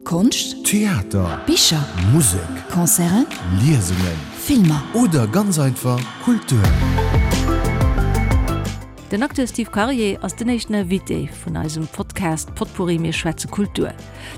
Konscht, Theater, Bicher, Musek, Concerten, Liesungen, Filmer. Oder ganz einfach Kultur. Den Acteur Steve Karier ass den éischten Invité vun eisem Podcast Potpourri Mir schwätze Kultur.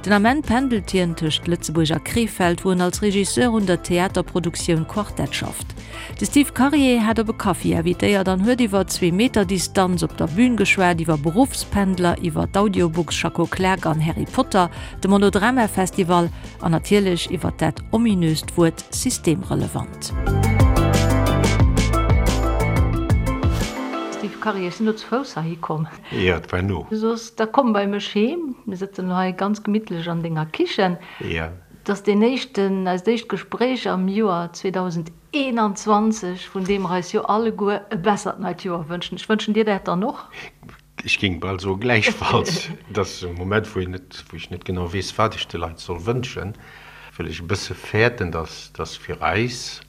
Den Ament pendelt hien tëscht Lëtzebuerg a Krefeld, wou en als Regisseur un der Theaterproduktioun Quartett schafft. De Steve Karier hat op e Kaffi invitéiert an huet iwwer Zweemeter-Distanz op der Bün geschwat, iwwer Beruffspendler, iwwer d'Audiobooks Schacko Klak an Harry Potter, de Monodrama-Festival an natierlech iwwer dat ominöst Wuert systemrelevant. Steve Karier, ech sinn elo zu Fouss heihi komm. Jo, et war no. Du soss, da komm bei mech heem. Mir sëtzen elo hei ganz gemittlech an denger Kichen. Jo. Et ass deen éischten, eist éischt Gespréich am Joer 2021, vun deem mer eis jo alleguer e bessert neit Joer wënschen. Ech wënschen dir dat dann och. Ech géing bal soe gläichfalls. Et ass e Moment, wou een net, wou ech net genau weess, wat ech de Leit soll wënschen, well ech e bësse fäerten, dass, dass fir eis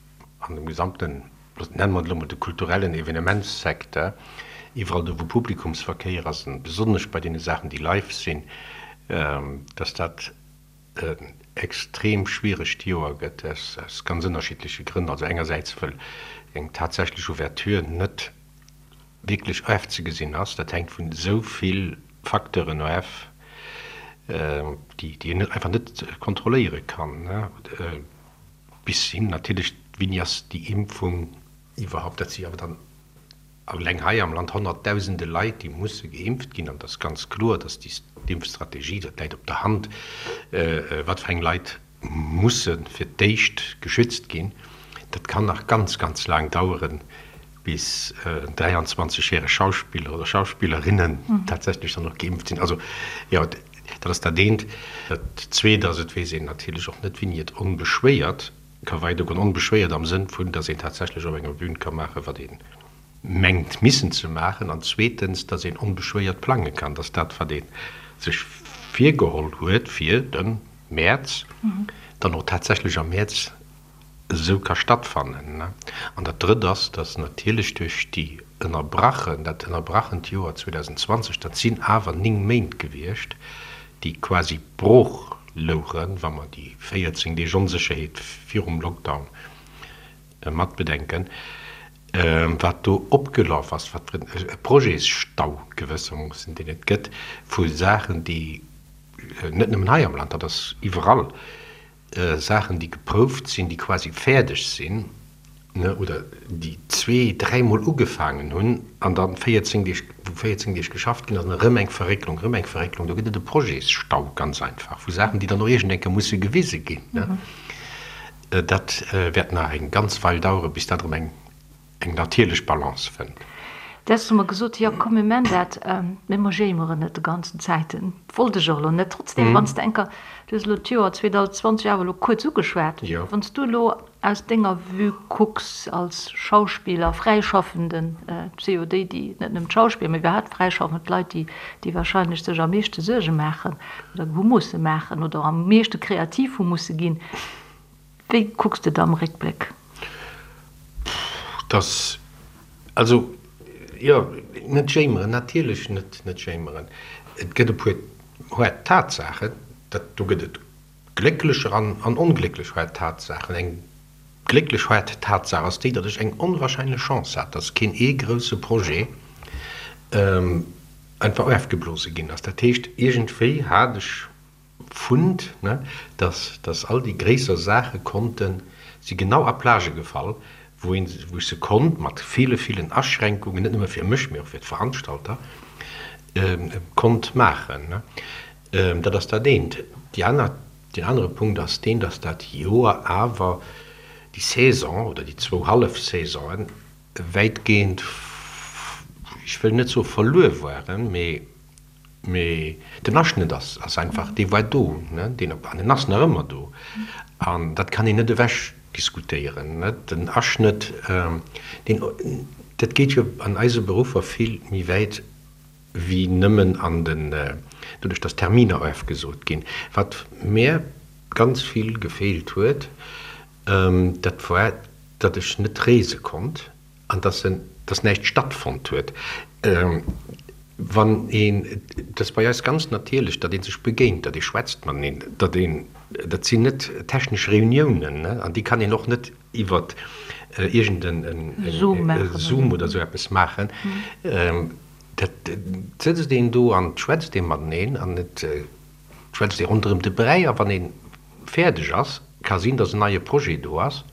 an dem gesamten, nennen mer et elo mol de kulturellen Evenementssecteur, iwwerall do wou Publikumsverkéier ass, an besonnesch bei deene Saachen, déi live sinn, dass dat en extrem schwieregt Joer gëtt, aus ganz ënnerschiddleche Grënn. Also engersäits, wëll eng tatsächlech Ouverture net wierklech ofzegesinn ass. Dat hänkt vun esou vill Facteuren of, déi een einfach net kontrolléiere kann, bis hin natierlech, wéini ass déi Impfung iwwerhaupt, dat si awer dann eleng hei am Land honnertdausende Leit, déi musse geimpft ginn. An et ass ganz kloer, datt déi Impfstrategie, dat läit op der Hand, wat fir eng Leit musse fir d'éischt geschützt ginn. Dat kann nach ganz, ganz laang daueren, bis 23 järeg Schauspiller oder Schauspillerinnen tatsächlech dann och geimpft sinn. Also jo, dat ass dat eent. Dat zweet ass, et weess een natierlech och net, wéini et onbeschwéiert ka weidergoen. Onbeschwéiert am Sënn vun, datt een tatsächlech op enger Bühn ka maachen, wat ee mengt missen ze maachen. An zweetens, datt een onbeschwéiert plange kann, datt dat, wat ee sech virgeholl huet fir de Mäerz, dann och tatsächlech am Mäerz esou ka stattfannen. An dat Drëtt ass, dass natierlech duerch déi ënnerbrachen, dat ënnerbrachent Joer 2020, dat sinn awer 9 Méint gewiescht, déi quasi brooch louchen, wa mer déi 14 Deeg Onsécherheet virum Lockdown matbedenken, wat do opgelaf ass, wat fir e Projetsstau gewëssermoossen, deen et gëtt vu Saachen, déi net nëmmen hei am Land, dat ass iwwerall, Saachen, déi geprouft sinn, déi quasi fäerdeg sinn, oder déi zwee-, dräimol ugefaangen hunn an da 14 Deeg, wou 14 Deeg geschafft ginn ass, an erëm eng Verrécklung, erëm eng Verrécklung. Do gëtt et e Projetsstau, ganz einfach, vu Saachen, déi dann och iergend eng Kéier musse gewise ginn. Dat wäert nach eng ganz Weil daueren, bis dat erëm eng eng natierlech Balance fënnt. Däers hu mer gesot, jo komm mir man dat, mee mer jéimeren net de ganzen Zäiten. Wollt ech och elo net. Trotzdem, wann s de enker, du hues elo d'Joer 2020 awer elo kuerz ugeschwat, wann s du elo aus denger Vue kucks als Schauspiller, Fräischaffenden, et si jo déi, déi, net nëmmen d'Schauspiller, mee iwwerhaapt fräischaffend Leit, déi, déi wahrscheinlech sech am meeschte Suerge maachen oder hu musse maachen oder am meeschte kreativ hu musse ginn, Wéi kucks de da am Réckbléck? Dass, also, jo, net jéimeren, natierlech net, net jéimeren. Et gëtt e puer haart Tatsaachen, dat, do gëtt et glécklecher an, an onglécklech haart Tatsaachen. Eng glécklech haart Tatsaach ass déi, datt ech eng onwahrscheinlech Chance hat, datt keen ee grousse Projet einfach ofgeblose ginn ass. Dat heescht, iergendwéi hat ech Fund, ne, dass, dass all déi gréisser Saache konnten, si genau a Plagë gefall, wou een, wou ech se konnt, mat ville, villen Aschränkungen, net nëmme fir mech, mee och fir d'Veranstalter, konnt maachen, ne. Dat ass dat eent. Déi aner, deen anere Punkt ass deen, dass dat Joer awer déi Saison oder déi zwou hallef Saisonen wäitgehend, ech wëll net soe verluer waren, mee Mee den Aschnëtt ass ass einfach, dee war do, ne, deen op, an en ass nach ëmmer do. An dat kann een net ewech diskutéieren, ne. Den Aschnëtt, deen, dat geet jo an eise Beruffer vill méi wäit wéi nëmmen an den, doduerch datt Terminer ofgesot ginn. Wat mär ganz vill gefeelt huet, dat war, datt ech net reese konnt. An dass en, dass näischt stattfonnt huet. Wann een, et ass bei eis ganz natierlech, datt ee sech begéint, datt ee schwätzt mateneen, datt een, dat sinn net technesch Reuniounen, ne, an déi kann een och net iwwer iergend en Zoom oder esou eppes maachen. Dat sëtzt een do an et schwätzt ee mateneen an et schwätzt ee ronderëm de Bräi a wann ee fäerdeg ass, ka sinn, datt en neie Projet do ass,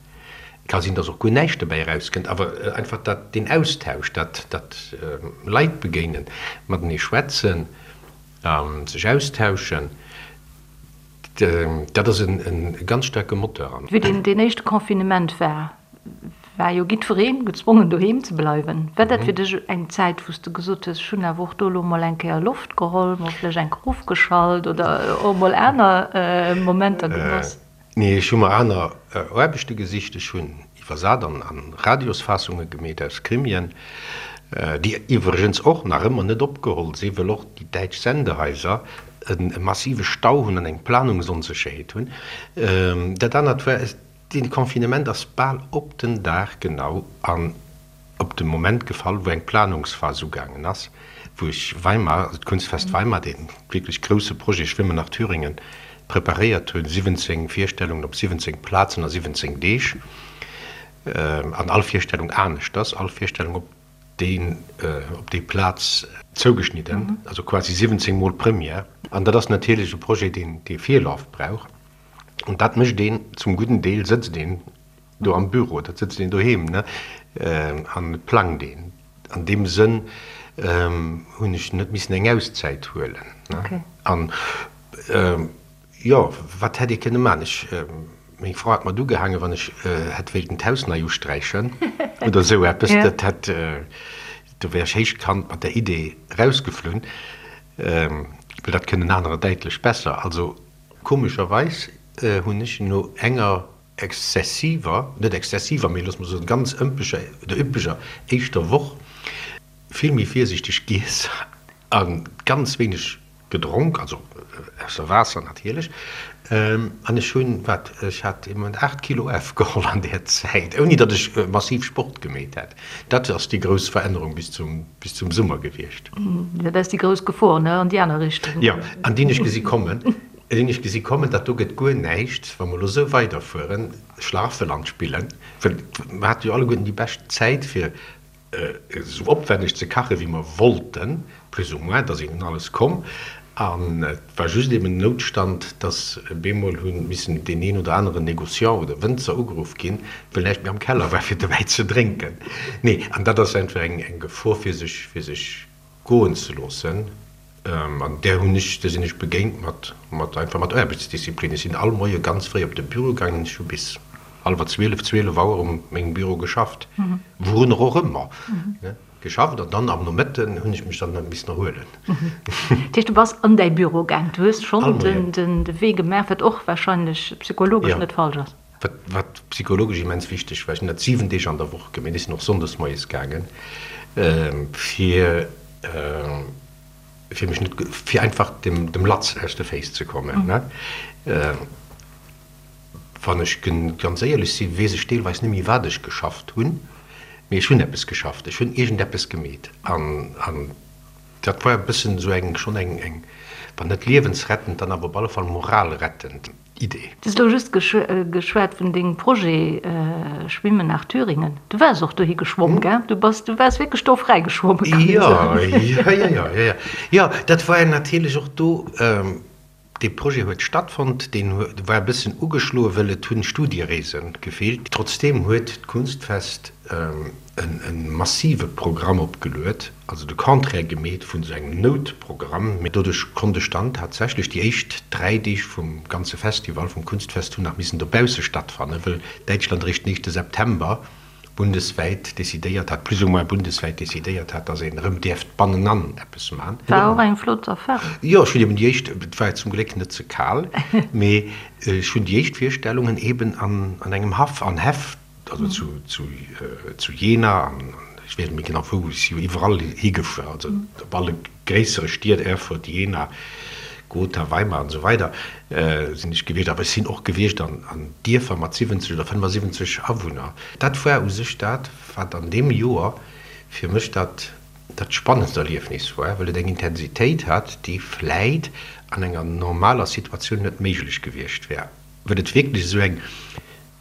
ka sinn, datt och guer näischt dobäi erauskënnt, awer einfach dat, deen Austausch, dat, dat Leit begéinen, matenee schwätzen, sech austauschen, dat ass e ganz staarke Moteur. Wéi deen éischte Confinement war, war jo giddweree gezwongen doheem ze bleiwen. War dat fir dech eng Zäit, wou s de gesot hues, ech hunn awer och do elo mol eng Kéier Loft geholl, mol vläicht eng Kéier ofgeschalt oder och mol aner Momenter genoss? Nee, ech hu mer aner Aarbechte gesicht. Ech hunn iwwersat an Radiosfaassunge gemeet aus Krimien, déi iwwregens och nach ëmmer net opgeholl sinn, wëll och déi däitsch Sendehaiser e massive Stau hunn an eng Planungsonsécherheet hunn. Dat anert war, Dee Confinement ass bal op den Dag genau an op de Moment gefall, wou eng Planungsphas ugaangen ass, wou ech Weimar, also d'Kunstfest Weimar, dee wierklech grousse Projet Schwimmen nach Thüringen, preparéiert hunn, 17 Virstellungen op 17 Plazen a 17 Deeg, an all Virstellung aneschters, all Virstellung op déi op déi Plaz zougeschnidden, also quasi 17 mol Première. An dat ass natierlech e Projet, deen dee Virlaf brauch. An dat mécht een zum gudden Deel, sëtzt een do am Büro, dat sëtzt een doheem, ne, an et plangt een. An deem Sënn hunn ech net missen eng Auszäit huelen, ne. An, jo, wat hätt ee kënne maachen? Ech, meng Fra hat mat ugehaangen, wann ech hätt wéilten d'Haus nei usträichen oder esou eppes, dat hätt, do wär ech héichkant mat der Idee erausgeflunn, well dat kënnen anerer däitlech besser. Also, Komescherweis hunn ech no enger exzessiver, net exzessiver, mee loosse mer soen ganz ëmpeger oder üppeger éischter Woch vill méi virsiichteg giess a ganz wéineg gedronk, also ausser Waasser natierlech. An ech hunn, wat, ech hat ee Moment 8 Kilo ofgeholl an där Zäit, ouni datt ech massiv Sport gemeet hätt. Dat ass déi grouss Verännerung bis zum, bis zum Summer gewiescht. Dat ass déi grouss Gefor, ne, an déi aner Richtung. Jo, an déi hunn ech gesi kommen. Déi hunn ech gesi kommen, dat do gëtt guer näischt, wa mer elo esou weiderfueren, Schlaraffeland spillen, well mer hate jo alleguerten déi bescht Zäit, fir esou opwänneg ze kachen, wéi mer wollten, plus ou moins, et ass een un alles komm. An et war just eben den Noutstand, dass bemol hu missen deen een oder aneren Négociant oder Wënzer ugeruff ginn, well näischt méi am Keller war fir de Wäi ze drénken. Nee, an dat ass einfach eng Gefor fir sech, fir sech goen ze loossen. An där hunn ech, där sinn ech begéint mat, mat einfach mat Aarbechtsdisziplin. Ech sinn all Moie ganz fréi op de Büro gaangen, ech hu bis hallwer 12, 12 Auer um mengem Büro geschafft, wourunner och ëmmer. Geschafft an dann am Nomëtten hunn ech mech dann missen erhuelen. Dat heescht, du bass an däi Büro gaang, du hues schonn de Wee gemaach, wat och warscheinlech psychologesch net falsch ass. Wat psychologesch immens wichteg war. Ech hunn dat 7 Deeg an der Woch gemaach, ech sinn och sonndes moies gaangen, fir fir mech net, fir einfach dem Latz aus de Féiss ze kommen. Wann ech ganz éierlech sinn, weess ech deelweis net méi, wat ech geschafft hunn, mee ech hunn eppes geschafft, ech hunn iergendeppes gemeet. An dat war e bëssen esou eng, schonn eng, eng, wann net liewensrettend, dann awer op alle Fall moralrettend Idee. Du hues elo just geschwat vun dengem Projet Schwimmen nach Thüringen. Du waars och dohi geschwomm, gell? Du bass, du waars wierklech do fräi geschwommen, kann een soen. Jo, jo, jo, jo, jo. Jo, dat war natierlech och do. Dee Projet huet stattfonnt, deen war e bëssen ugeschloen, wëll et hunn Studiereese gefeelt. Trotzdeem huet d'Kunstfest e massive Programm opgeluet, also de Contraire gemeet vun esou engem Noutprogramm. Mee doduerch konnt ech dann tatsächlech déi éischt 3 Deeg vum ganze Festival, vum Kunstfest, hunn nach missen dobausse stattfannen, wëll Däitschland eréischt den éischte September bundeswäit decidéiert hat, plus ou moins bundeswäit decidéiert hat, datt een erëm däerft bannenan eppes man. War och eng flott Erfahrung. Jo, ech hunn eben déi éischt, et war zum Gléck net ze kal, mee ech hunn déi éischt Virstellungen eben an engem Haff, an Häff, also zu zu Jena an ech weess net méi genau wou, ech si jo iwwerall higefuer, also op alle gréissere Stied, Erfurt, Jena, Gotha, Weimar an esou weider sinn ech gewiescht, awer ech sinn och gewiescht an Dierfer mat 70 oder 75 Awunner. Dat war u sech dat, wat an deem Joer fir mech dat. dat spannendst Erliefnis war, well et eng Intensitéit hat, déi vläit an enger normaler Situatioun net méiglech gewiescht wär, well et wierklech esou eng,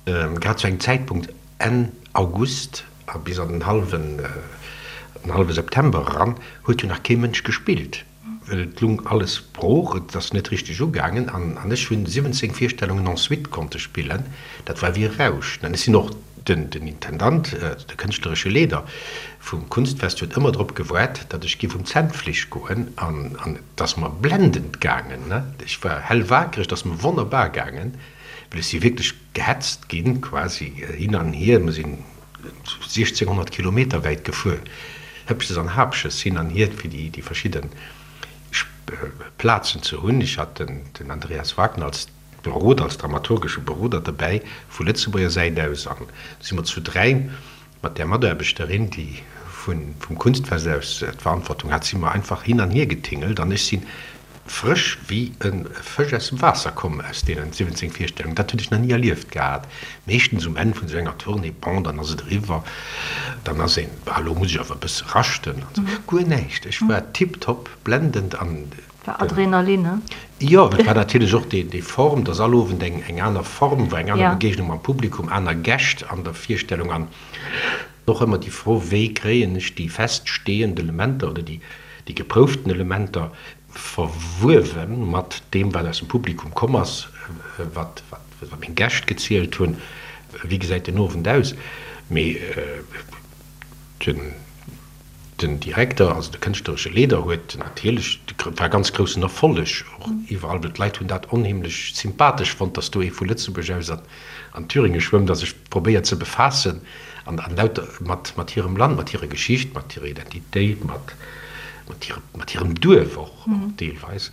grad zu engem Zäitpunkt Enn August a bis an den hallwen, den hallwe September eran, huet jo nach kee Mënsch gespillt, well et lung alles brooch, et ass net richteg ugaangen an ech hunn 17 Virstellungen en suite konnte spillen, dat war wéi e Rausch. Ech sinn och Den Intendant, de kënschtleresche Leeder vum Kunstfest huet ëmmer drop gewaart, datt ech giff um Zännfleesch goen an et ass mer blendend gaangen. Ech war hellwakereg, et ass mer wonnerbar gaangen, well ech si wierklech gehetzt ginn, quasi hin an hier. Mer sinn 1600 Kilometer wäit gefuer, Hëppches an Hapches hin an hier, fir déi verschidde Plazen ze hunn. Ech hat den Andreas Wagner als Beroder, als dramaturgesche Beroder derbäi vu Lëtzebuerger Säit aus an du si mer zu 3 mat där Mataarbechterin, déi vum Kunstfest aus d'Verantwortung hat, si mer einfach hin an hier getingelt an ech si frësch wéi e Fësch aus dem Waasser komm aus deenen 17 Virstellungen. Dat hunn ech nach ni erlieft gehat. Meeschtens um Enn vun esou enger Tournée, bon, dann ass et eriwwer, dann ass een, ah, elo muss ech awer e bësse raschten an esou. Guer näischt, ech war tiptop, blendend an War Adrenalin, ne? Jo, et war natierlech och déi Form, dass all Owend eng aner Form war, eng aner Begegnung mam Publikum, aner Gäscht an der Virstellung an och ëmmer déi Fro, wéi kréien ech déi feststehend Elementer oder déi geprouften Elementer verwuewe mat deem, wat aus dem Publikum komm ass, wat meng Gäscht gezielt hunn, wéi gesäit den Owend aus? Mee den. Den Direkter, also de kënschtleresche Leeder huet natierlech, et war e ganz groussen Erfolleg och iwwerall, well d'Leit hunn dat onheemlech sympathesch fonnt, datt do ee vu Lëtzebuerg aus an Thüringe schwëmmt a sech probéiert ze befaassen an lauter mat hirem Land, mat hirer Geschicht, mat hirer Identitéit, mat hirem Duerf och deelweis.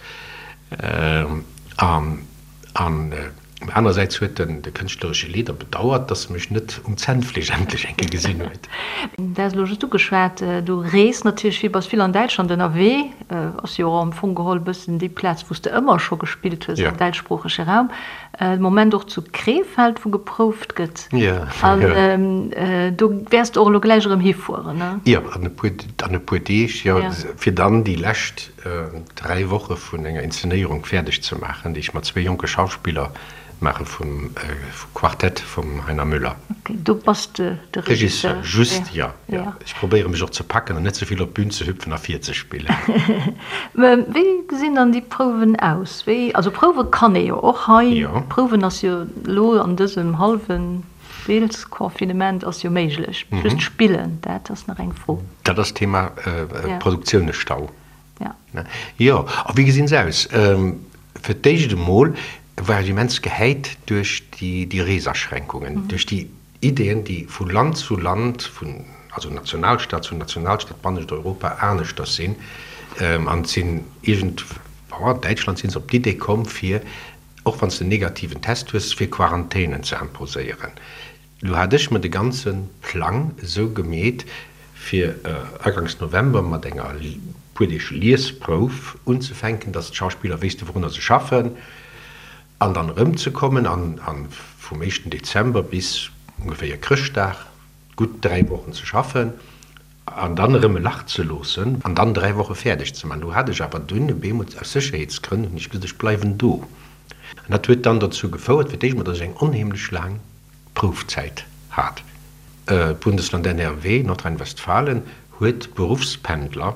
An anersäits huet den de kënschtleresche Leeder bedauert, dass e mech net um Zännfleesch endlech eng Kéier gesinn huet. Du has elo just ugeschwat, du rees natierlech vill, bass vill an Däitschland ënnerwee, ass jo och am Fong geholl e bëssen déi Plaz, wou s de ëmmer scho gespillt hues am däitschsproochege Raum. De Moment och zu Krefeld, wou geprouft gëtt. An do wäers de och elo gläich erëm hifueren, ne? Jo, an e puer, an e puer Deeg, jo, fir dann déi lescht 3 Woche vun enger Inszenéierung fäerdeg ze maachen, déi ech mat zwee jonke Schauspiller maache vum Quartett vum Heiner Müller. Ok, do bass de de Regisseur? Regisseur, just, jo, jo. Ech probéiere mech och ze packen an net ze vill op d'Bün ze hüpfen a virzespillen. Wéi gesinn dann déi Prouwen aus? Wéi, also prouwe kann ee jo och hei. Prouwen ass jo elo an dësem hallwen Deelsconfinement ass jo méiglech, just spillen, dat ass nach eng Fro. Dat ass d'Thema Produktiounesstau. Jo, a wéi gesinn se aus? Fir d'éischt emol war ech immens gehäit duerch déi Reesaschränkungen, duerch déi Ideeën, déi vu Land zu Land, vun, also Nationalstaat zu Nationalstaat bannescht Europa aneschters sinn. An et sinn iergend, an Däitschland si se op d'Idee komm, fir och wann s de en negativen Test hues, fir Quarantänen ze imposéieren. Lo hat ech mer de ganze Plang esou gemeet, fir aganks November mat enger puer Deeg Liesprouf unzefänken, dass d'Schauspiller wéisste wourunner se schaffen, an dann erëmzekommen an vum éischten Dezember bis ongeféier Chrëschtdag gutt 3 Wochen ze schaffen. An dann erëm e Lach ze loossen an dann 3 Woche fäerdeg ze man. Do hat ech awer dunn e beemol, aus Sécherheetsgrënn, hunn ech gesot, ech bleiwen do. An dat huet dann dozou gefouert, fir d'éischt emol, datt ech eng onheemlech laang Proufzäit hat. D'Bundesland NRW, Nordrhein-Westfalen, huet d'Beruffspendler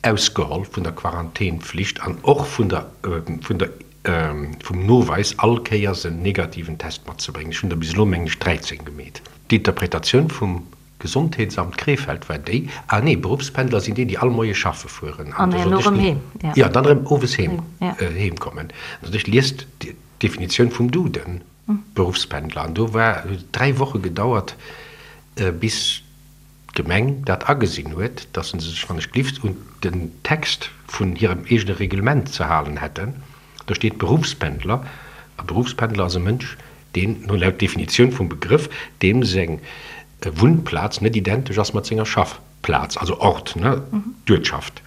ausgeholl vun der Quarantänpflicht an och vun der, vun der, vum Noweis, all Kéiers en negativen Test matzebréngen. Ech hunn der bis elo, mengen ech, 13 gemeet. D'Interpretatioun vum Gesondheetsamt Krefeld war déi, ah nee, Beruffspendler sinn déi, déi all Moie schaffe fueren an herno erëm heem, jo, dann erëm owes heem, heem kommen. Also ech liest d'Definitioun vum Duden, Beruffspendler, an do war, huet et 3 Woche gedauert, bis d'Gemeng dat agesinn huet, dass se sech wann ech glift un den Text vun hirem eegene Reglement ze halen hätten. Do steet Beruffspendler, a Beruffspendler ass e Mënsch, deen, no laut Definitioun vum Begrëff, deem seng Wunnplaz net identesch ass mat senger Schaffplaz, also Ort, ne, d'Uertschaft.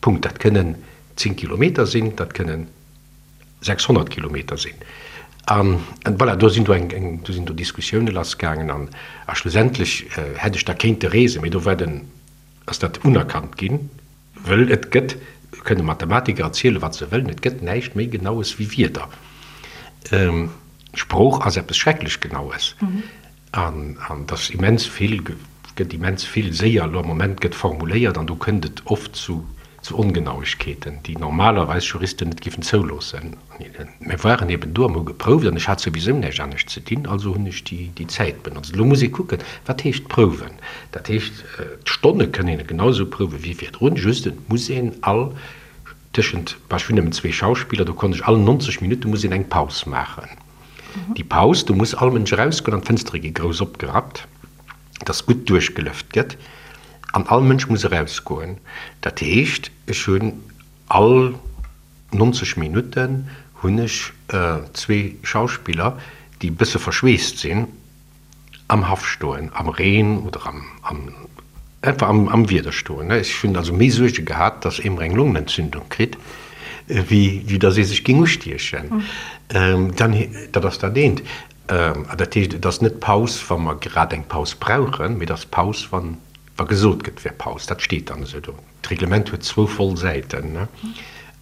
Punkt. Dat kënnen 10 Kilometer sinn, dat kënnen 600 Kilometer sinn. An voilà, do sinn do eng, eng, do sinn do Diskussioune lassgaangen an a schlussendlech hätt ech da kéinte reesen, mee do war den. Ass dat unerkannt ginn, wëll et gëtt, kënne Mathematiker erzielen, wat se wëllen, et gëtt näischt méi Genaues wéi Wierder. Sprooch ass eppes schrecklech Genaues. An et ass immens vill, gëtt immens vill séier elo am Moment gëtt formuléiert an do kënnt et oft zu Ongenauegkeeten, déi normalerweis Juristen net géifen zouloossen. Mir waren eben do an hu geprouft an ech hat souwisou näischt anescht ze dinn, also hunn ech déi Zäit benotzt. Elo muss ee kucken, wat heescht prouwen? Dat heescht, d'Stonne kënn een genau esou prouwe wéi virdrun, just et muss een all tëschent, bah ech hunn nëmmen zwee Schauspiller, do konnt ech all 90 Minutte muss een eng Paus maachen. Déi Paus, do muss all Mënsch erausgoen an d'Fënstere gi grouss opgerappt, dass gutt duerchgelëft gëtt an all Mënsch muss erausgoen. Dat heescht, ech hunn all 90 Minutten hunn ech zwee Schauspiller, déi e bësse verschweesst sinn, am Haff stoen, am Reen oder am, am, einfach am, am Wieder stoen. Ech hunn also méi Suerge gehat, dass ee mer eng Longenentzündung kritt, wéi, wéi dass ee sech géing ustiechen. Dann, dat ass dat eent. Dat heescht, et ass net Paus, wa mer grad eng Paus brauchen, mee et ass Paus, wann, wa gesot gëtt, et wär Paus. Dat steet dann esou do. D'Reglement huet zwou voll Säiten.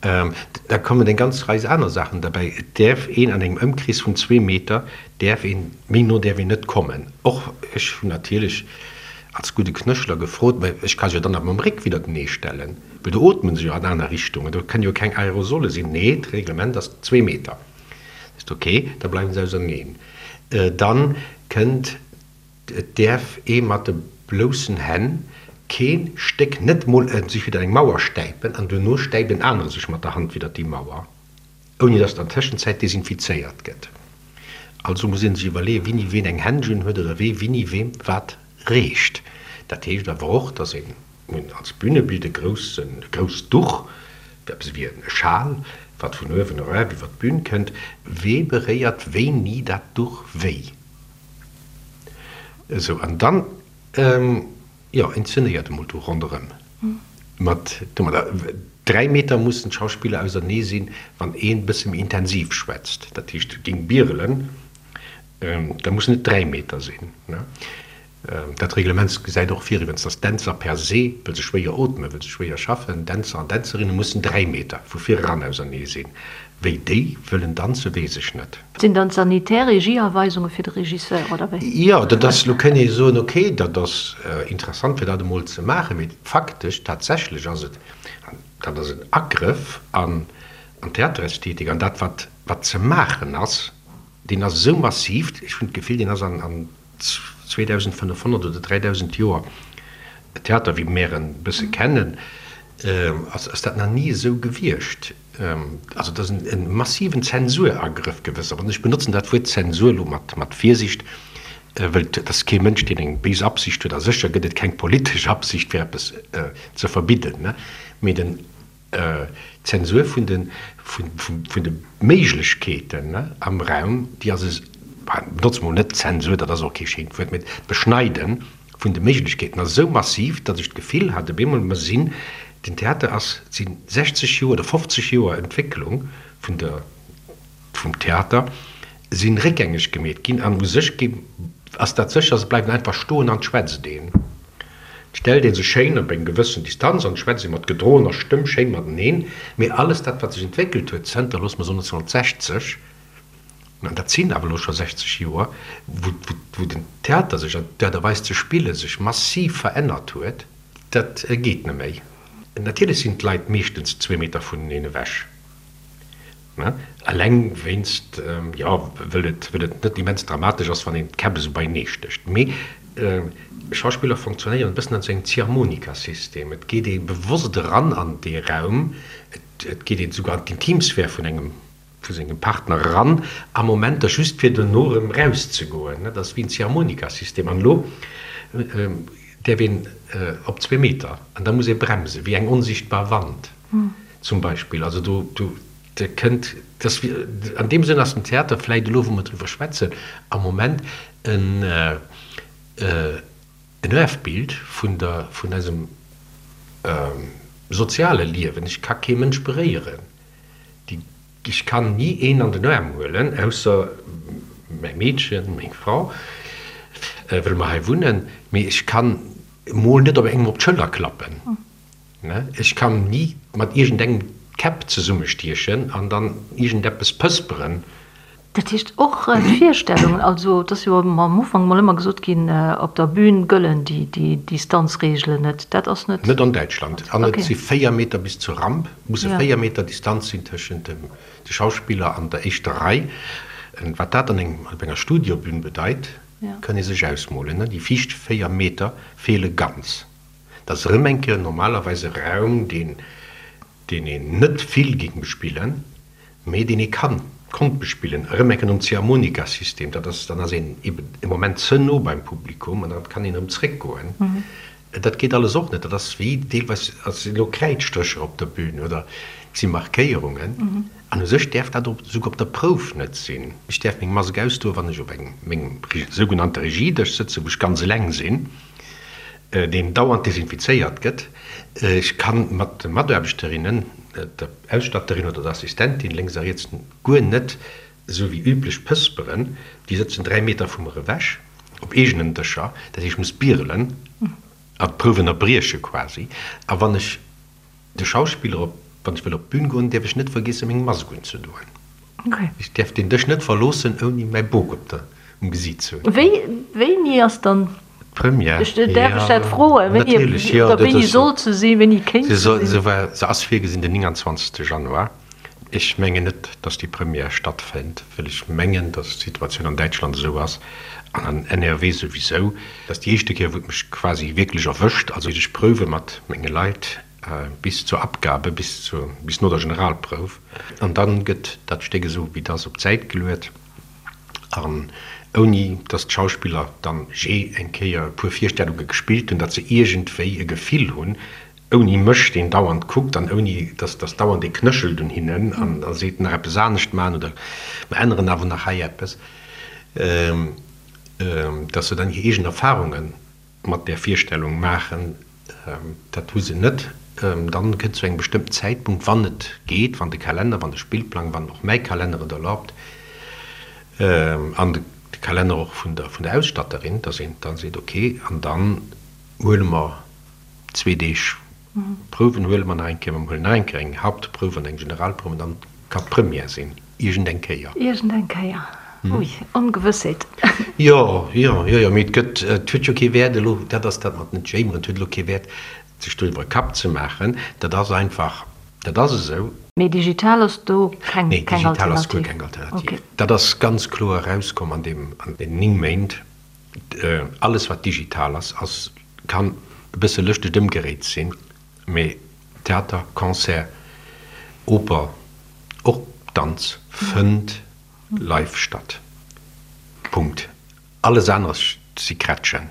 Da kommen eng ganz Rei aner Saachen derbäi. Et däerf een an engem Ëmkrees vun zwee Meter däerf een, méi no däerf een net kommen. Och ech hunn natierlech als gudde Knëschler gefrot, mä ech ka se jo dann awer mam Réck widdertenee stellen, well do ootme se jo an aner Richtungen, do kënnen jo keng Aerosole sinn. Nee, d'Reglement ass zwee Meter. Ist ok, da bleiwen se auserneen. Dann kënnt. Et däerf ee mat de bloussen Hänn kee Stéck, net mol e sech widder eng Mauer stäipen an duerno stäipt en anere sech mat der Hand widder déi Mauer, ouni datt an Tëschenzäit desinfizéiert gëtt. Also muss ee sech iwwerleeën, wini ween eng Händschen huet oder wee wini weem wat reecht. Dat heescht awer och, datt een als Bünebild e groussen, e grousst Duch, eppes ewéi e Schal, wat vun uewen eraf iwwer d'Bün kënnt, wee beréiert wéini dat Duch wéi. Esou, an dann, jo, inzenéiert emol do ronderëm mat domadder. 3 Meter mussen d'Schauspiller ausernee sinn, wann een e bësse méi intensiv schwätzt, dat heescht géing bierelen, da mussen et 3 Meter sinn. Dat Reglement gesäit och vir iwwens, dass d'Dänzer per se, wëll se schwéier ootmen, wëll se schwéier schaffen, Dänzer an Dänzerinne mussen 3 Meter vu vir eran ausernee sinn. Wéi déi wëllen danzen, weess ech net. Sinn dann d'sanitär Regieaweisunge fir de Regisseur, oder wéi? Jo, dat ass, lo kënnt ee soen, ok, dat ass interessant fir dat emol ze maachen, mee faktesch, tatsächlech ass et, an dat ass en Agrëff an d'Theaterästhetik, an dat wat wat ze maachen ass, deen ass esou massiv, ech hunn d'Gefill, deen ass an 2500 oder 3000 Joer Theater, wéi mär en bësse kennen, ass dat nach ni esou gewiescht. Also et ass e massiven Zensuragrëff gewëss. An ech benotzen dat Wuert Zensur elo mat Virsicht, wëll et ass kee Mënsch, deen eng béis Absicht huet, a sécher gëtt et keng politesch Absicht, fir eppes ze verbidden, mee den D'Zensur vun de vun de Méiglechkeeten am Raum, déi ass es, benotze mol net Zensur, dat ass och kee schéint Wuert, mee d'Beschneide vun de Méiglechkeeten ass esou massiv, datt ech d'Gefill hat op eemol, mer sinn, den Theater ass, et si 60 Joer oder 50 Joer Entwécklung vun der, vum Theater si réckgängeg gemeet ginn an u sech gi ass dat sécher, se bleiwen einfach stoen an et schwätzt een. Et stellt ee sech schéin op eng gewëssen Distanz an et schwätzt ee mat gedroener Stëmm schéin mateneen, mee alles dat wat sech entwéckelt huet zënter, loosse mer soen 1960, an dat sinn awer elo scho 60 Joer, wou wou den Theater sech an d'Aart a Weis ze spille sech massiv verännert huet, dat geet net méi. Natierlech sinn d'Leit meeschtens zwee Meter vuneneen ewech. Eleng wéinst, jo, wëll et, wëll et net immens dramatesch ass, wann een d'Käpp esou beienee stécht. Mee Schauspiller fonctionnéieren e bëssen an esou engem Ziehharmonika-System. Et geet ee bewosst eran an dee Raum, et, et geet een esouguer an d'Intimsphär vun engem, vu sengem Partner eran a Momenter, just fir dono erëm erauszegoen. Dat ass wéi en Ziehharmonika-System. An elo däerf een op zwee Meter an da muss ee bremsen, wéi eng onsichtbar Wand. Zum Beispill. Also do, do kënnt, dass, an deem Sënn ass den Theater vläicht elo, wou mer driwwer schwätzen, am Moment en, en Erfbild vun der, vun eisem soziale Liewen. Ech ka kee Mënsch beréieren. Déi, ech kann ni een an den Aarm huelen, ausser mäi Meedchen, meng Frau, well mer hei wunnen, mee ech kann. Emol net op engem op d'Schëller klappen. Ech kann ni mat iergendengem d'Käpp zesummestiechen an dann iergendeppes pësperen. Dat heescht och d'Virstellungen, also et ass jo am Ufank mol ëmmer gesot ginn, op der Bühn gëllen déi Distanzreegelen net. Dat ass net. Net an Däitschland. An et si 4 Meter bis zur Ramp, musse 4 Meter Distanz sinn tëschent dem de Schauspiller an der éischter Rei. Wat dat an engem, op enger Studiobün bedeit, kann ee sech ausmolen. Déi viischt 4 Meter feele ganz. Dat ass erëm eng Kéier normalerweis e Raum, deen, deen een net vill géing bespillen, mee deen ee kann, konnt bespillen, erëm eng Kéier nom Ziehharmonika-System. Dat ass, dann ass een eben e Moment ze no beim Publikum an dann kann een erëm zréckgoen. Dat geet alles och net. Dat ass wéi deelweis, et sinn elo Kräidstrécher op der Bühn oder et si Markéierungen. An u sech däerf dat och esouguer op der Prouf net sinn. Ech däerf meng Mask ausdoen, wann ech op engem, mengem sougenannte Regiedësch sëtzen, wou ech ganz eleng sinn, deen dauernd desinfizéiert gëtt. Ech ka mat de Mataarbechterinnen, der Ausstatterin oder der Assistentin lénks a riets guer net esou wéi üblech pësperen. Déi sëtzen 3 Meter vu mer ewech op eegenen Dëscher. Dat heescht, ech muss bierelen a d'Prouf ënnerbrieche quasi. A wann ech De Schauspiller op, Wann ech wëll op d'Bün goen, däerf ech net vergiessen, meng Mask unzedoen. Ech däerf deen Dësch net verloossen, ouni mäi Bok op der, um Gesiit ze hunn. Wéi, wéini ass dann d'Première? Ech, däerf ech dat froen? Wéini, Natierlech, jo. Oder wéini sollt se sinn, wéini kéint se sinn? Se war, se ass virgesinn den 29. Januar. Ech mengen net, datt déi Première stattfënnt, well ech mengen, datt d'Situatioun an Däitschland esou ass, an an NRW souwisou, Dat ass déi éischte Kéier, wou et mech quasi wierklech erwëscht. Also ech prouwe mat menge Leit bis zur Abgabe, bis zur, bis no der Generalprouf. An da gëtt dat Stéck esou wéi et ass op d'Säit geluet an ouni datt d'Schauspiller dann jee eng Kéier e puer Virstellunge gespillt hunn, datt se iergendwéi e Gefill hunn, ouni mech, deen dauernd kuckt an ouni datt datt dauernd ee knéchelt un hinnen an a seet, nach eppes anescht maachen oder mer änneren awer nach hei eppes. Dass se dann hir eegen Erfahrunge mat där Virstellung maachen, dat hu se net. Dann kënnt zu engem bestëmmten Zäitpunkt, wann et geet, wann de Kalenner, wann de Spillplang, wann och mäi Kalenner et erlaubt an de Kalenner och vun der vun der Ausstatterin, dass een dann seet, okay, an dann huele mer zwee Deeg Prouwen huele mer nach eng Kéier, mer huelen nach eng Kéier eng Hauptprouf an eng Generalprouf an dann kann d'Première sinn, iergend eng Kéier. Iergend eng Kéier, ui, Ongewëssheet. Jo, jo, jo, jo, mee et gëtt, et huet jo kee Wäert elo, dat ass dat mat net jéimeren, et huet elo kee Wäert, sech doriwwer e Kapp ze maachen, dat ass einfach, dat ass esou. Mee digital ass do keng, Nee, keng digital ass guer Alternativ? keng Alternativ. Okay. Dat ass ganz kloer erauskomm an deem, an deenen 9 Méint. Alles wat digital ass, ass, kann e bësse lëschteg ëmgeréit sinn, mee Theater, Concert, Oper, och Danz fënnt live statt. Punkt. Alles aneres si Krätschen.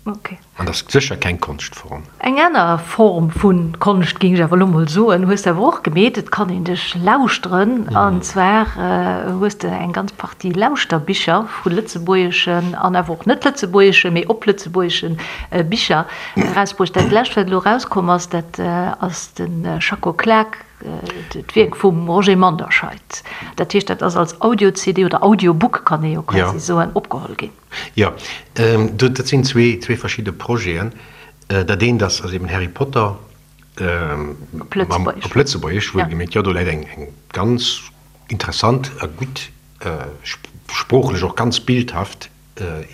An dat ass sécher keng Konschtform. Eng aner Form vu Konscht, géing ech awer elo mol soen, hues de awer och gemeet. Et kann een dech lauschteren. An zwar hues de eng ganz Partie Lauschterbicher vu lëtzebuergeschen an awer och net lëtzebuergeschen, mee op lëtzebuergesche Bicher erausbruecht. Dat lescht, wat elo erauskomm ass, dat ass de Schacko Klak, d'Wierk vum Roger Manderscheid. Dat heescht, dat ass als Audio-CD oder Audiobook, kann ee jo quasi soen, opgeholl ginn. Jo, dat sinn zwee verschidde Projeten. Dat eent ass eben Harry Potter op Lëtzebuergesch, wuelgemierkt. Jo, do läit eng ganz interessant a gutt, sproochlech och ganz bildhaft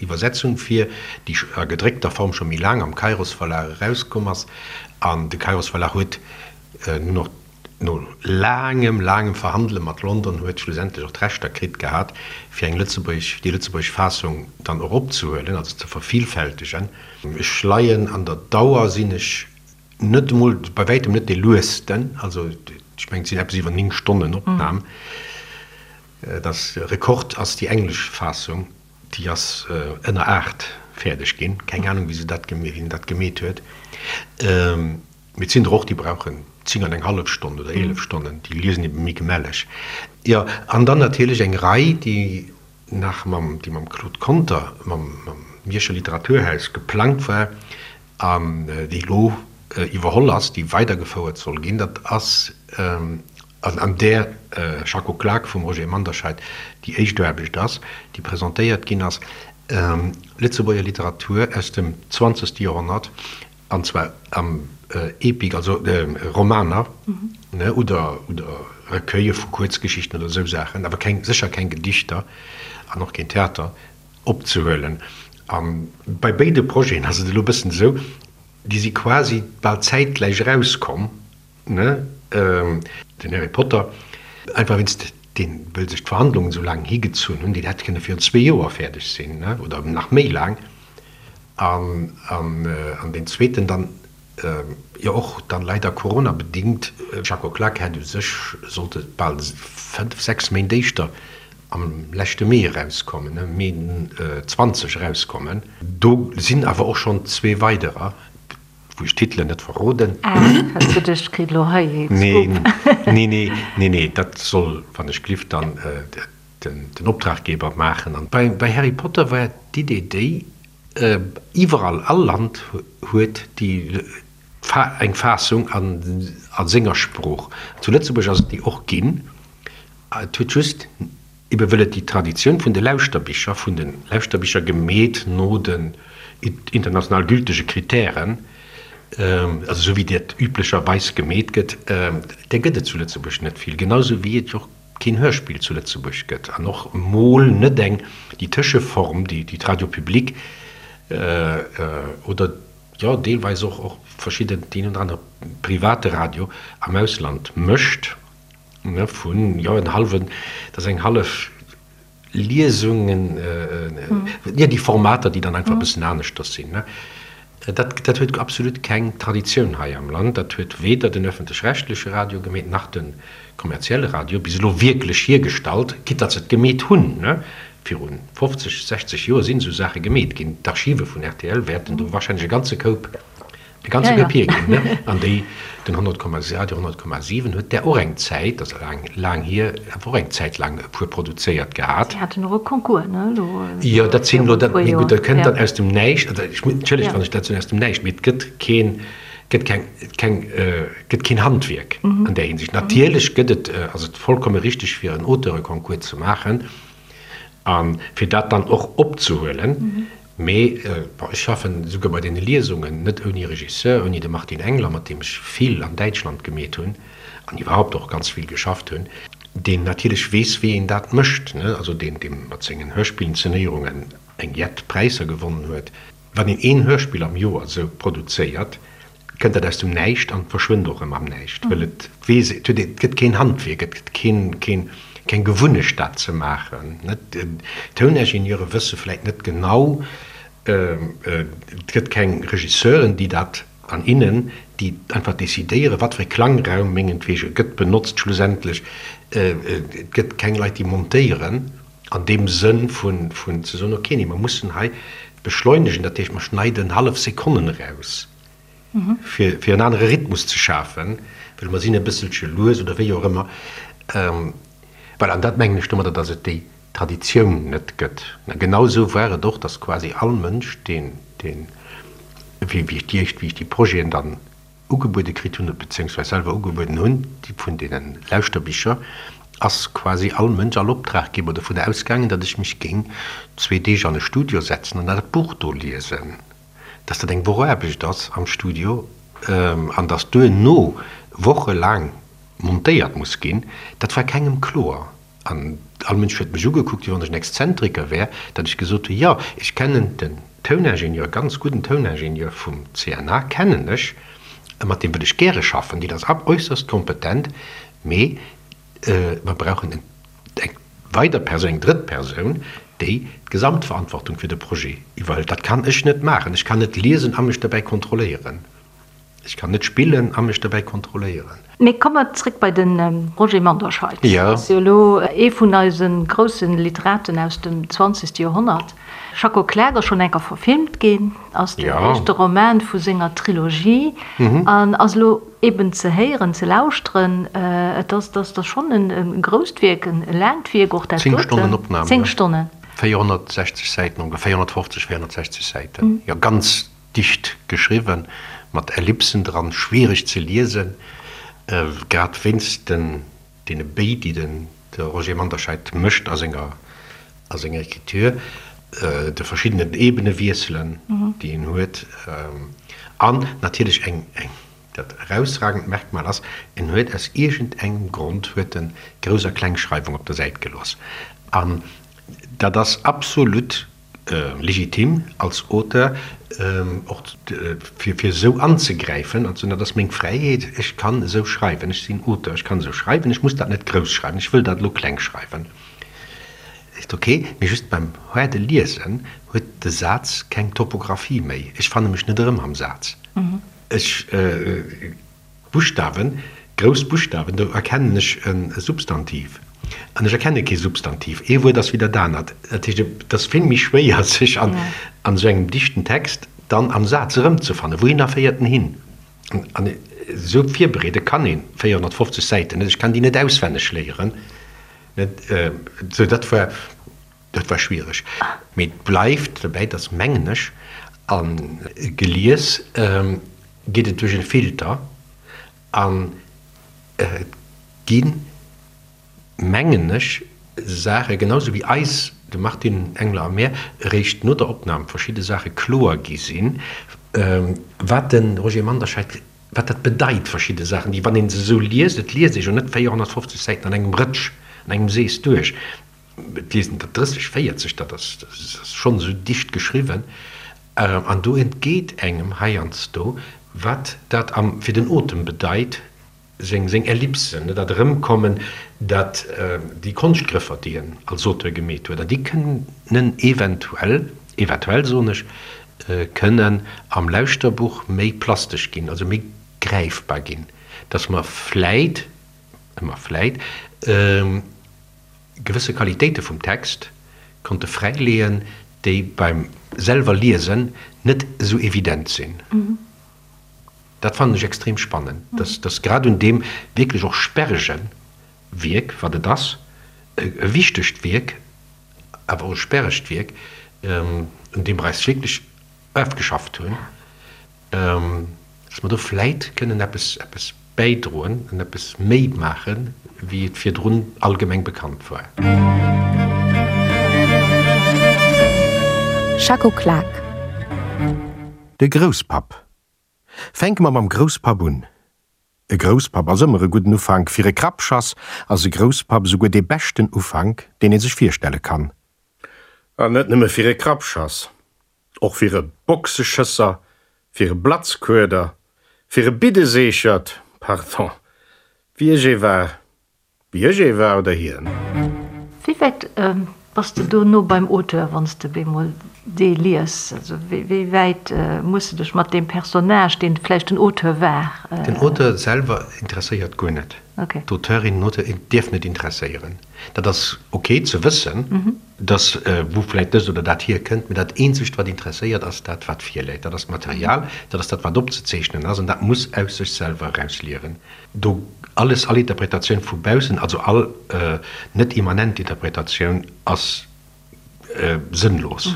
Iwwersetzung vir, déi a gedréckter Form scho méi laang am Kairos Verlag erauskomm ass. An de Kairos Verlag huet nun och No laangem, laangem Verhandele mat London huet schlussendlech och d'Rechter kritt gehat, fir eng lëtzebuergesch, déi lëtzebuergesch Fassung dann och opzehuelen, also ze vervielfältegen. Ech leien an der Dauer, sinn ech net emol, bei wäitem net dee luesten, also ech mengen et sinn eppes iwwer 9 Stonnen Opnam. Dat Rekord ass déi englesch Fassung, déi ass ënner 8 fäerdeg ginn. Keng Anung wéi se dat, wien dat gemeet huet. Mee et sinn der och, déi brauchen 10 an eng hallef Stonn oder 11 Stonnen, déi liesen ebe méi gemälleg. Jo, an dann natierlech eng Rei, déi nach mam, déi mam Claude Conter, mam Mierscher Literaturhaus geplangt war an déi elo iwwerholl ass, déi weidergefouert soll ginn. Dat ass, an an där Schacko Klak vum Roger Manderscheid déi éischt Aarbecht ass, déi presentéiert ginn ass. Lëtzebuerger Literatur aus dem zwanzegste Joerhonnert, an zwar am Epik, also Romaner, ne, oder oder Recueille vu Kuerzgeschichten oder esou Saachen, awer keng, sécher keng Gedichter an och keen Theater, opzehuelen. A bei béide Projeten ass et elo e bëssen esou, déi si quasi bal zäitgläich erauskomm, Ne, den Harry Potter, einfach wéinst deen, wëll sech d'Verhandlungen esou laang higezunn hunn, deen hätt kënne virun zwee Joer fäerdeg sinn, ne, oder nach méi laang. An, an, an deen zweeten dann, jo och dann leider coronabedingt, Jacques Oklak hätt u sech sollte bal fënnf, sechs Méint éischter am leschte Mee erauskommen, ne, Mee 20 erauskommen. Do sinn awer och schonn zwee weiderer. Wou ech d'Titelen net verroden. Ah, hat geduecht, kritt elo hei ee Scoop. Nee, nee, nee, nee, dat soll, wann ech glift, dann den Optraggeber maachen. An bei Harry Potter war d'Idee déi, iwwerall, all Land huet déi eng Fassung a senger Sprooch. Zu Lëtzebuerg ass et déi och ginn. Et huet just Ebe wëll et déi Traditioun vun de Lauschterbicher, vun de Lauschterbicher gemeet no den international gültege Kritären, also esou wéi dat üblecherweis gemeet gëtt, där gëtt et zu Lëtzebuerg net vill, genau esou wéi et jo och keen Hörspill zu Lëtzebuerg gëtt an och emol net eng, déi Tëscheform, déi d'Radio Public oder, jo, deelweis och och verschidden, deen oder anere private Radio am Ausland mécht. Ne, vun, jo, en hallwen, dat ass eng hallef Liesung, en, jo, déi Formater, déi dann einfach e bëssen aneschters sinn, ne. Dat, dat huet absolut keng Traditioun hei am Land. Dat huet weder den öffentlech-rechtleche Radio gemeet, nach de kommerzielle Radio bis elo wierklech hiergestallt, quitte datt se et gemeet hunn, ne. Viru 50, 60 Joer sinn esou Saache gemeet ginn. D'Archive vun rtl wäerten do wahrscheinlech e ganze Koup De ganze Koup hierginn, ne? An déi, den 100, Radio 100,7 huet där och eng Zäit, dat ass laang, laang hier, awer och eng Zäit laang e puer produzéiert gehat. Si haten och e Concours, ne, elo Jo, dat sinn elo, dat, mee gutt, dat kënnt dann aus dem Näischt, also ech, entschëllegt, wann ech dat soen, aus dem Näischt, mee et gëtt keen, gëtt keng, keng, gëtt keen Handwierk an där Hinsicht. Natierlech gëtt et, ass et vollkomme richtig, fir en Auteureconcours ze maachen a fir dat dann och opzehuelen. Mee bon, ech schaffen esouguer bei deene Liesungen net ouni Regisseur, ouni de Martin Engler, mat deem ech vill an Däitschland gemeet hunn an iwwerhaupt och ganz vill geschafft hunn, deen natierlech weess, wéi een dat mécht, ne, also deen, dee mat sengen Hörspillinszenéierungen eng jett Präisser gewonnen huet. Wann een een Hörspill am Joer esou produzéiert, kënnt dat aus dem Näischt an verschwënnt och erëm am Näischt, wëll et weess, et huet, et gëtt keen Handwierk, et gëtt keen, keen, keng Gewunnecht dat ze maachen. Net, d'Touningenieuren wësse vläit net genau, et gëtt keng Regisseuren, déi dat an innen, déi einfach decidéieren, wat fir e Klangraum mengetwege gëtt benotzt schlussendlech, et gëtt keng Leit, déi montéieren an deem Sënn vun, vun ze soen, okay, nee, mer mussen hei beschleunegen, dat heescht, mer schneiden hallef Sekonnen eraus, fir, fir en anere Rhythmus ze schafen, well mer sinn e bësselche lues oder wéi och ëmmer. Voilà, an dat mengen ech domadder, datt et déi Traditioun net gëtt. A genau esou war et och, datt quasi all Mënsch, deen, deen, wéi, wéi ech déi éischt, wéi ech déi Projeten dann ugebuede kritt hunn, beziéungsweis selwer ugebueden hunn, déi vun deene Lauschterbicher, ass quasi all Mënsch, all Optraggeber dovun ausgaangen, datt ech mech géing zwee Deeg an e Studio setzen an dat Buch do liesen, datt dat eng Woch Aarbecht ass am Studio an datt duerno wochelaang montéiert muss ginn, dat war kengem kloer. An all Mënsch huet mech ugekuckt, wéi wann ech en Exzentriker wär, datt ech gesot hunn, jo, ech kennen den Touningenieur, ganz gudden Touningenieur vum CNA kennen ech, mat deem wëll ech gäre schaffen, deen ass äusserst kompetent, mee mer brauchen eng weider Persoun, eng drëtt Persoun, déi d'Gesamtverantwortung fir de Projet iwwerhëlt. Dat kann ech net maachen. Ech kann net liesen a mech dobäi kontrolléieren. Ech kann net spillen a mech dobäi kontrolléieren. Mee komme mer zréck bei de Roger Manderscheid. Dat ass jo elo ee vun eise grousse Literaten aus dem zwanzegste Joerhonnert. Schacko Klak ass schonn eng Kéier verfilmt ginn, ass den éischte Roman vu senger Trilogie an ass elo eben ze héieren, ze lauschteren. Et ass, dat ass schonn e grousst Wierk, e laangt Wierk och dat doten. Zéng Stonnen Opnam, jo. Zéng Stonnen. 460 Säiten ongeféier, 450, 460 Säiten, jo, ganz Dicht geschriwwen, mat Ellipsen dran, schwiereg ze liesen, grad wéinst den deene Béi, déi den de Roger Manderscheid mécht a senger a senger Écriture. de verschiddenen Ebenewiesselen, déi en huet, an natierlech eng, eng, dat erausragend Merkmal ass, en huet aus iergendengem Grond huet en Grouss a Klengschreiwung op der Säit gelooss. An dat ass absolut legitim als Auteur, och fir esou anzegräifen an ze soen, dat ass meng Fräiheet, ech kann esou schreiwen, ech sinn Auteur, ech kann esou schreiwen, ech muss dat net grouss schreiwen, ech wëll dat elo kleng schreiwen. Ist ok, mee just beim haarde Liesen huet de Saz keng Topographie méi. Ech fanne mech net erëm am Saz. Ech, Buschtawen, grouss Buschtawen, do erkennen ech e Substantiv. An ech erkenne kee Substantiv. Ee Wuert ass wéi dat anert. Dat heescht, et ass vill méi schwéier, sech an esou engem dichten Text dann am Saz erëmzefannen. Wouhinner féiert en hin? An esou virbereede kann ee 450 Säiten net. Ech kann déi net auswenneg léieren. Sou, dat war, dat war schwiereg. Mee et bleift dobäi, dass, mengen ech, a gelies geet et duerch e Filter an et ginn, mengen ech, Saache genau sou wéi eis, dem Martine Engler a mär, eréischt no der Opnam verschidde Saache kloer gi sinn, wat de Roger Manderscheid wat dat bedeit, verschidde Saachen, déi, wann ee se esou liest, et liest ee jo net 450 Säiten an engem Rëtsch, an engem Sees duerch, et liest een der 30, 40, dat ass schonn esou dicht geschriwwen, an do entgeet engem heiansdo, wat dat am, fir den Otem bedeit, seng, seng Ellipsen, dat Erëmkommen, dat, déi Konschtgrëffer, déi en als Auteur gemeet huet, an déi kënnen eventuell, eventuell soen ech, kënnen am Lauschterbuch méi plastesch ginn, also méi gräifbar ginn, dass mer vläit, ëmmer vläit, gewësse Qualitéite vum Text konnte fräileeën, déi beim selwer Liesen net esou evident sinn. Dat fannen ech extrem spannend, dass, dass grad un deem wierklech och sperrege Wierk, wat et ass, e wichtegt Wierk, awer och e sperregt Wierk, un deem mer eis wierklech ofgeschafft hunn, dass mer do vläit kënnen eppes, eppes bäidroen an eppes méi maachen, wéi et virdrun allgemeng bekannt war. Schacko Klak. De Grousspapp. Fänke mer mam Grousspapp un. E Grousspapp ass ëmmer e gudden Ufank. Fir e Krappschass ass e Grousspapp esouguer dee beschten Ufank, deen ee sech virstelle kann. An net nëmme fir e Krappschass, och fir e Boxeschësser, fir e Blatzkueder, fir e Biddeseechert, pardon, wéi ech ee war. Wéi ech ee war oder hien. Wéi wäit bass de do no beim Auteur, wann s de bemol dee lies? Also wéi wäit muss de dech mat deem Personnage, deen vläicht den Auteur war. Den Auteur selwer interesséiert guer net. D'Auteurin, den Auteur dierf net interesséieren. Dat ass ok ze wëssen, dass wou vläicht dëst oder dat hierkënnt, mee dat eenzegt wat interesséiert ass dat wat virläit. Dat ass d'Material, dat ass dat wat opzezeechnen ass an dat muss aus sech selwer erausliewen. Do alles, all Interpretatioun vu baussen, also all net immanent Interpretatioun ass sënnlos.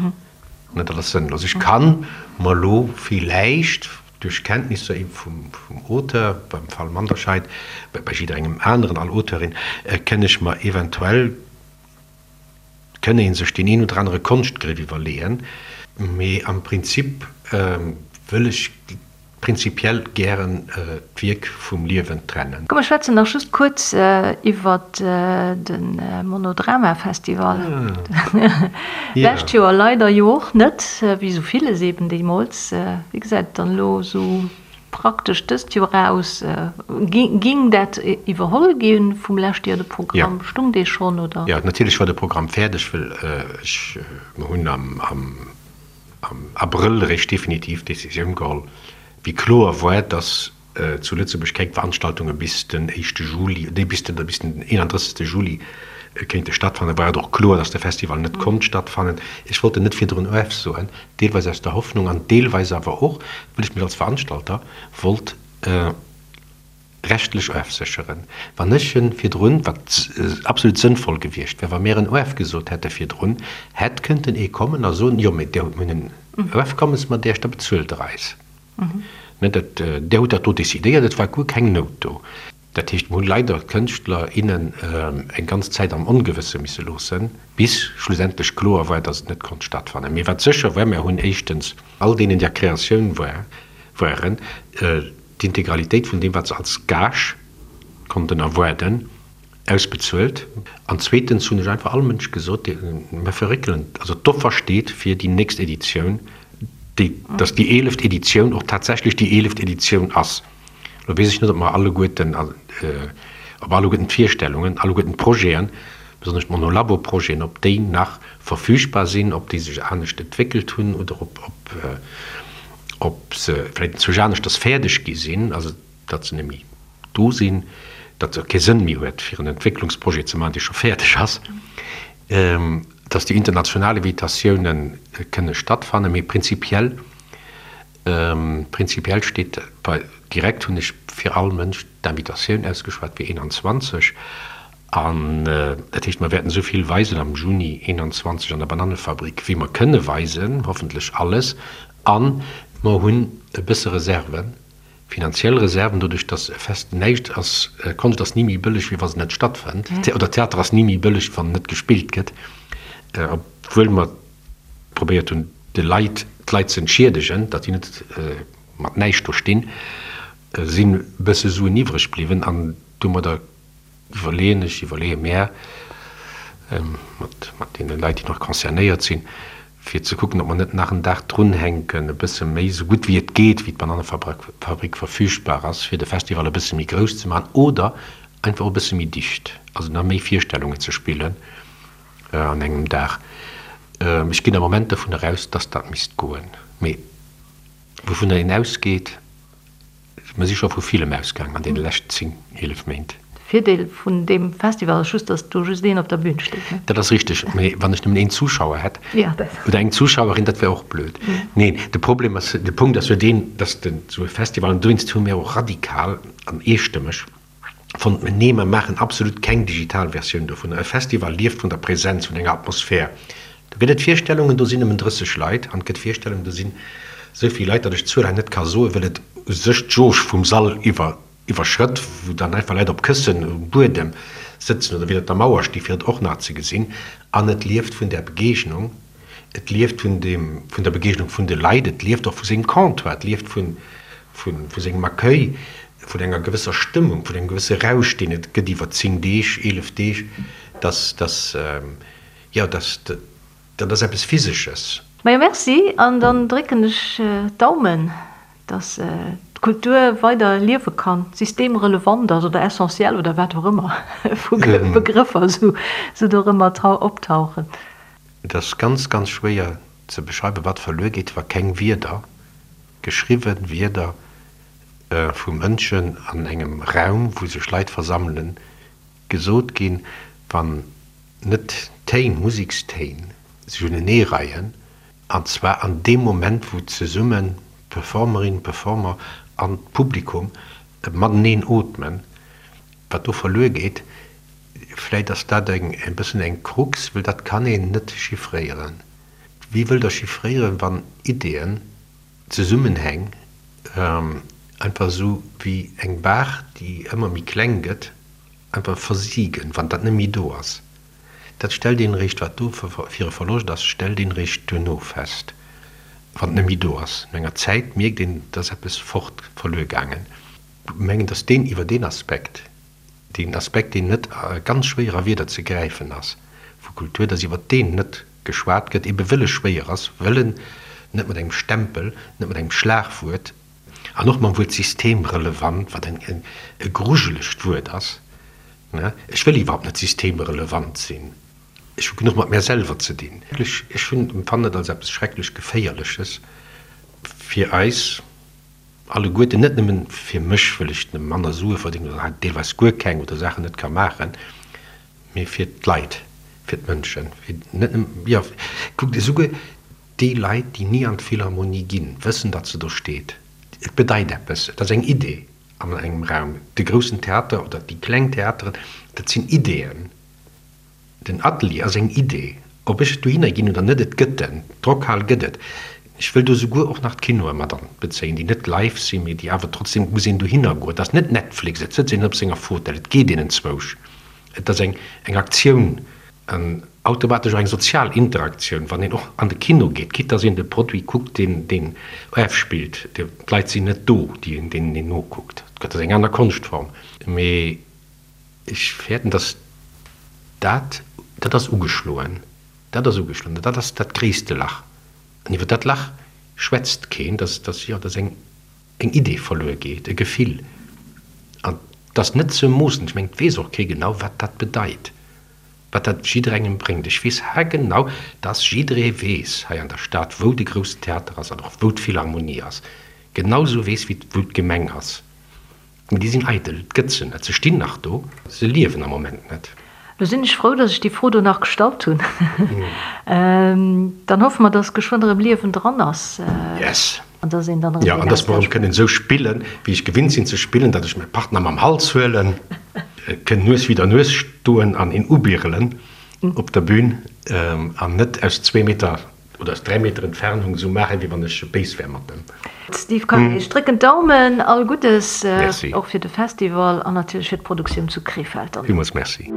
Dat ass sënnlos. Ech kann mer elo villäicht duerch Kenntnisser ebe vum Auteur, beim Fall Manderscheid, bei jidderengem aneren, all Auteurin, kënn ech mer eventuell, kënn ee sech deen een oder anere Konschtgriff iwwerleeën, mee am Prinzip wëll ech prinzipiell gären d'Wierk vum Liewen trennen. Komm mer schwätzen nach just kuerz iwwert de Monodrama-Festival. Lescht Joer leider jo och net, wéi esou villes eben deemools. Wéi gesäit et dann elo esou praktesch dëst Joer aus? Ging dat iwwerholl gi vum leschte Joer, de Programm? Stung dee schonn, oder? Jo, natierlech war de Programm fäerdeg, well ech, mer hunn am am Abrëll eréischt definitiv d'Decisioun geholl, wéi kloer war, dass zu Lëtzebuerg keng Veranstaltunge bis den éischte Juli, nee, bis den, bis den 31. Juli kéinte stattfannen, war et och kloer, dass de Festival net konnt stattfannen. Ech wollt en net virdrun ofsoen, deelweis aus der Hoffnung an deelweis awer och, well ech mech als Veranstalter wollt rechtlech ofsécheren. Wann ech en virdrun, wat absolut sënnvoll gewiescht wär, wa mir en ofgesot hätte virdrun, hätt kënnten ee kommen a soen, jo, mee Dir hutt mir en Ofkommes mat Iech, da bezuelt Der eis. Ne, dat, Dir hutt dat do decidéiert, et war guer keng Nout do. Dat heescht, mer hunn leider d'Kënschtler, innen eng ganz Zäit am Ongewësse misse loossen, bis schlussendlech kloer war, dass et net konnt stattfannen. Mee wat sécher war, mer hunn éischtens all deenen, déi a Kreatioun waren, d'Integralitéit vun deem, wat se als Gage konnten erwaarden, ausbezuelt. An zweetens hunn ech einfach all Mënsch gesot, mer verréckelen, also d'Offer steet fir déi nächst Editioun, déi, dass déi eeleft Editioun och tatsächlech déi eeleft Editioun ass. Lo weess ech net, ob mer alleguerten, ob alleguerten d'Virstellungen, alleguerten d'Projeten, besonnesch d'Monolabo-Projeten, ob déi nach verfügbar sinn, ob déi sech anescht entwéckelt hunn oder ob, ob, ob se vläicht inzwousch aneschters fäerdeg gi sinn, also datt se net méi do sinn, datt et kee Sënn méi huet, fir en Entwécklungsprojet ze maachen, dee scho fäerdeg ass, datt déi international Invitatiounen kënne stattfannen. Mee prinzipiell Prinzipiell steet bei direkt hunn ech fir all Mënsch d'Invitatioun ausgeschwat fir 21 an dat heescht mer wäerten esou vill weisen am Juni 21 an der Banannefabrik wéi mer kënne weisen, hoffentlech alles an mer hunn e bësse Reserven, finanziell Reserven, doduerch datt e Fest näischt ass, Konscht ass ni méi bëlleg wéi wa se net stattfënnt oder Theater ass ni méi bëlleg wann net gespillt gëtt, obwuel mer probéiert hunn, de Leit, d'Leit ze entschiedegen, datt déi net mat näischt do stinn, sinn e bësse Suen iwwreg bliwwen an domadder iwwerleeën ech, iwwerleeë mär mat, mat deene Leit, déi nach concernéiert sinn, fir ze kucken, ob mer net nach en Dag drunhänken, e bësse méi, esou gutt wéi et geet, wéi d'Banannefabrik verfügbar ass, fir de Festival e bësse méi grouss ze maachen oder einfach och e bësse méi dicht, also nach méi Virstellungen ze spillen. An engem Dag. Ech ginn am Moment dovun eraus, dass dat misst goen. Mee wouvunner een ausgeet, mer si scho vu villem ausgaangen an deene leschten 10, 11 Méint. De Virdeel vun deem Festival ass just, dass do just een op der Bühn steet, ne? Dat ass richteg. Mee wann ech nëmmen een Zuschauer hätt oder eng Zuschauerin, dat wär och blöd. Neen, de Problem ass, de Punkt ass jo deen, dass den esou e Festival, an dowéinst hu mir och radikal an eestëmmeg, Fonnt mer, nee, mer maachen absolut keng digital Versioun dovunner. E Festival lieft vun der Präsenz, vun enger Atmosphär. Do gëtt et Virstellungen, do sinn nëmmen 30 Leit, an et gëtt Virstellungen, do sinn esou vill Leit, datt ech d'Zuel hei net ka soen, well et u sech d'Jauge vum Sall iwwer iwwerschrëtt, wou dann einfach Leit op Këssen um Buedem sëtzen oder widder der Mauer sti fir et och nach ze gesinn. An et lieft vun där Begegnung, et lieft vun deem, vun der Begegnung vun de Leit, et lieft och vu sengem Comptoir, et lieft vun, vun, vu sengem Accueil, vun enger gewësser Stëmmung, vun engem gewësse Rausch, deen et gëtt iwwer 10 Deeg, 11 Deeg, dass, dass, jo, dass, dat ass eppes Physesches. Majo merci, an dann drécken ech d'Daumen, dass d'Kultur weider liewe kann, systemrelevant ass oder essentiel oder wat och ëmmer vu Begrëffer sou do erëm mat optauchen. Et ass ganz, ganz schwéier ze beschreiwen, wat verluer geet, wa keng Wierder, geschriwwe Wierder vu Mënschen an engem Raum, wou sech Leit versammelen, gesot ginn, wann net Téin, Musekstéin sech uneneereien, an zwar an deem Moment, wou zesummen d'Performerin, Performer an d'Publikum mateneen ootmen, wat do verluer geet. Vläit ass dat eng e bëssen eng Krux, well dat kann een net chiffréieren. Wéi wëllt Der chiffréieren, wann Ideeën, Zesummenhäng einfach esou wéi eng Baach, déi ëmmer méi kleng gëtt, einfach versigen, wann dat net méi do ass? Dat stellt een eréischt, wat do fir e Verloscht ass, stellt een eréischt duerno fest, wann et net méi do ass. No enger Zäit mierkt een, et ass eppes fort, verluer gaangen. Ech mengen, datt deen iwwer deen Aspekt, deen Aspekt, deen net ganz schwéier a Wierder ze gräifen ass, vu Kultur, datt iwwer deen net geschwat gëtt, ebe wëll e schwéier ass, wëll en net mat engem Stempel, net mat engem Schlagwuert an och mam Wuert systemrelevant, wat e grujelegt Wuert ass, ech wëll iwwerhaupt net systemrelevant sinn, ech hu genuch mat mär selwer ze dinn. Ech hunn, empfannen et als eppes schrecklech Geféierleches fir eis alleguerten, net nëmmen fir mech, wëll ech manner Sue verdéngen oder deelweis guer keng oder Saachen net ka maachen, mee fir d'Leit, fir d'Mënschen, fir net nëmmen, jo, kuckt, esouguer déi Leit, déi ni an d'Philharmonie ginn, wëssen, datt se do steet. Et bedeit eppes, et ass eng Idee an engem Raum. De groussen Theater oder déi kleng Theateren, dat sinn Ideeën. Den Atelier ass eng Idee. Ob ech dohinner ginn oder net, et gëtt en. D'Rockhal gëtt et. Ech wëll do souguer och nach d'Kinoe mat anbezéien, déi net live sinn, mee déi awer trotzdem, et muss een dohinner goen. Et ass net Netflix, et sëtzt een net op senger Fotell, et geet een enzwousch. Et ass eng eng Aktioun an automatesch och eng sozial Interaktioun, wann een och an de Kino geet, quitte dass een de Produit kuckt, deen deen ofspillt. D'Leit sinn net do, déi een deenen een nokuckt. Et ass eng aner Konschtform, mee ech fäerten, dass dat, dat ass ugeschloen, dat ass ugeschloen, dat ass dat gréisste Lach. An iwwer dat Lach schwätzt keen, dass, dass, jo, dass eng. eng Idee verluer geet, e Gefill, an 't ass net ze moossen. Ech mengen, 't weess och kee genau, wat dat bedeit, wat dat jidderengem bréngt. Ech weess haargenau, dass jidderee weess hei an der Stad, wou de Groussen Theater ass an och wou d'Philharmonie ass, genau sou weess wéi wou d'Gemeng ass. Mee déi sinn eidel, et gëtt se net. Se stinn nach do, se liewen am Moment net. Lo sinn ech frou, dass ech déi Fro do nach gestallt hunn. Dann hoffe mer, dass geschwënn erëm Liewen dran ass. Yes. An dass een dann erëm Jo, an dass mer erëm kënnen esou spillen, wéi ech gewinnt sinn ze spillen, datt ech mäi Partner mam Hals huelen, kënn Nues widder Nues stoen an een ubirelen op der Bühn an net aus zwee Meter Oder aus 3 Meter Entfernung esou maachen, wéi wann ech béis wär mat em. Steve Kayser, ech drécken d'Daumen, all Guddes, och fir de Festival an natierlech fir d'Produktioun zu Krefeld dann. Villmools Merci.